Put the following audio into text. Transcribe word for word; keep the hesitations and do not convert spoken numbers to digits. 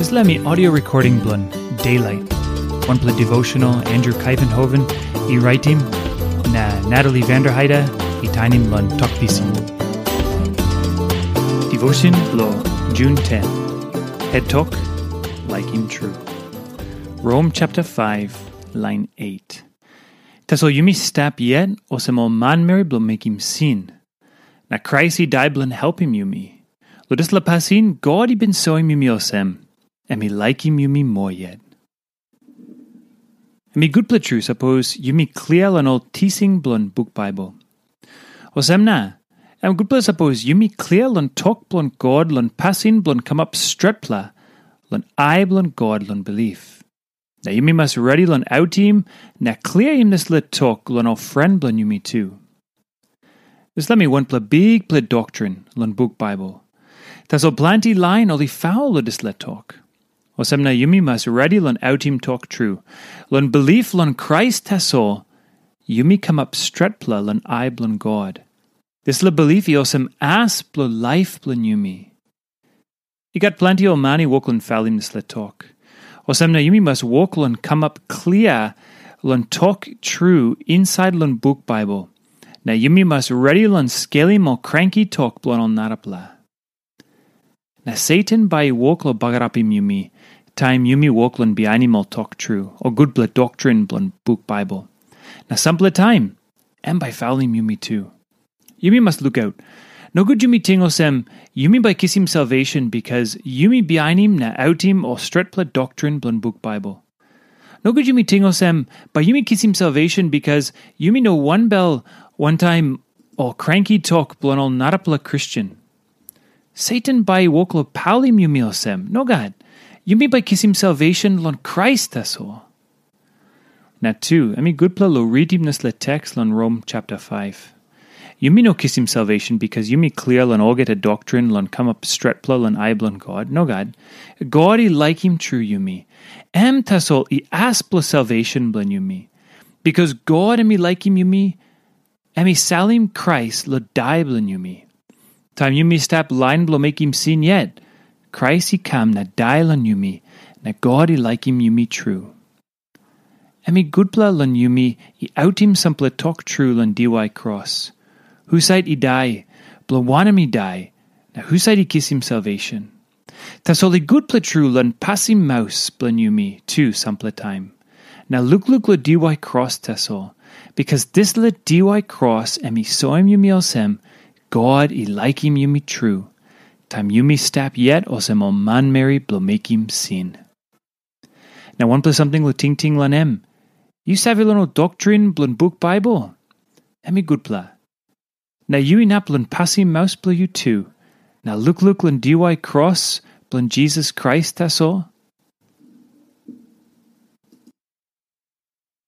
Dispela mi audio recording bilong Daylight, wanpela devotional Andrew Kaivenhoven i raitim, na Natalie Vanderheide i tainim long Tok Pisin. Devotion bilong June ten. Het tok, laikim tru. Rom chapter five, line eight. Tasol yumi stap yet olsem ol manmeri bilong mekim sin. Na Krais i dai bilong helpim yumi. Long dispela pasin, God i bin soim yumi olsem, em i laikim yumi moa yet. Em i gutpela tru sapos yumi klia long ol tising bilong buk Bible. Olsem na, em gutpela sapos yumi klia long tok bilong God long pasin bilong kamap stretpela long ai bilong God long bilip. Na yumi mas redi long autim na kliaim dispela tok long ol pren bilong yumi tu. Dispela mi wanpela bikpela doktrin long buk Bible. Tasol planti lain ol i faul long dispela tok. Olsem na yumi mas redi long autim tok tru. Long bilip long Krais tasol, yumi kamap stretpela long ai bilong God. Dispela bilip i olsem as bilong laip bilong yumi. I gat planti ol man i wok long falim dispela tok. Olsem na yumi mas wok long kamap klia long tok tru insait long buk Bible. Na yumi mas redi long skelim ol kranki tok bilong ol narapela. Na Satan bai i wok long bagarapim yumi, taim yumi wok long bihainim ol tok tru, o gutpela doktrin bilong buk Bible. Na sampela taim, em bai i falim yumi tu. Yumi mas lukaut. Nogut yumi ting olsem, yumi bai kisim salvation bikas yumi bihainim na autim ol stretpela doktrin bilong buk Bible. Nogut yumi ting olsem, bai yumi kisim salvation bikas yumi no wanbel wantaim ol kranki tok bilong ol narapela Kristen. Satan bai i wok long paulim yumi olsem. Nogat. Yumi bai kisim salvation long Krais tasol. Na tu, em i gutpela long ritim dispela teks long Rom chapter five. Yumi no kisim salvation bikas yumi klia long olgeta doktrin long kamap stretpela long ai bilong God. Nogat. God i laikim tru yumi. Em tasol i as bilong salvation bilong yumi. Bikas God em i laikim yumi, em i salim Krais long dai bilong yumi. Taim yumi stap lain bilong mekim sin yet, Krais i kam na dai long yumi, na God i laikim yumi tru. Em i gutpela long yumi i autim sampela tok tru long diwai kros. Husat i dai, bilong wanem i dai, na husat i kisim salvation? Tasol i gutpela tru long pasim maus bilong yumi tu sampela taim. Na lukluk long diwai kros tasol, bikas dispela diwai kros em i soim yumi olsem, God i laikim yumi tru, taim yumi stap yet olsem ol manmeri bilong mekim sin. Na wanpela samting long tingting long em. Yu save long ol doktrin bilong buk Bible? Em i gutpela. Na yu inap long pasim maus bilong yu tu, na lukluk long diwai kros bilong Jisas Krais tasol,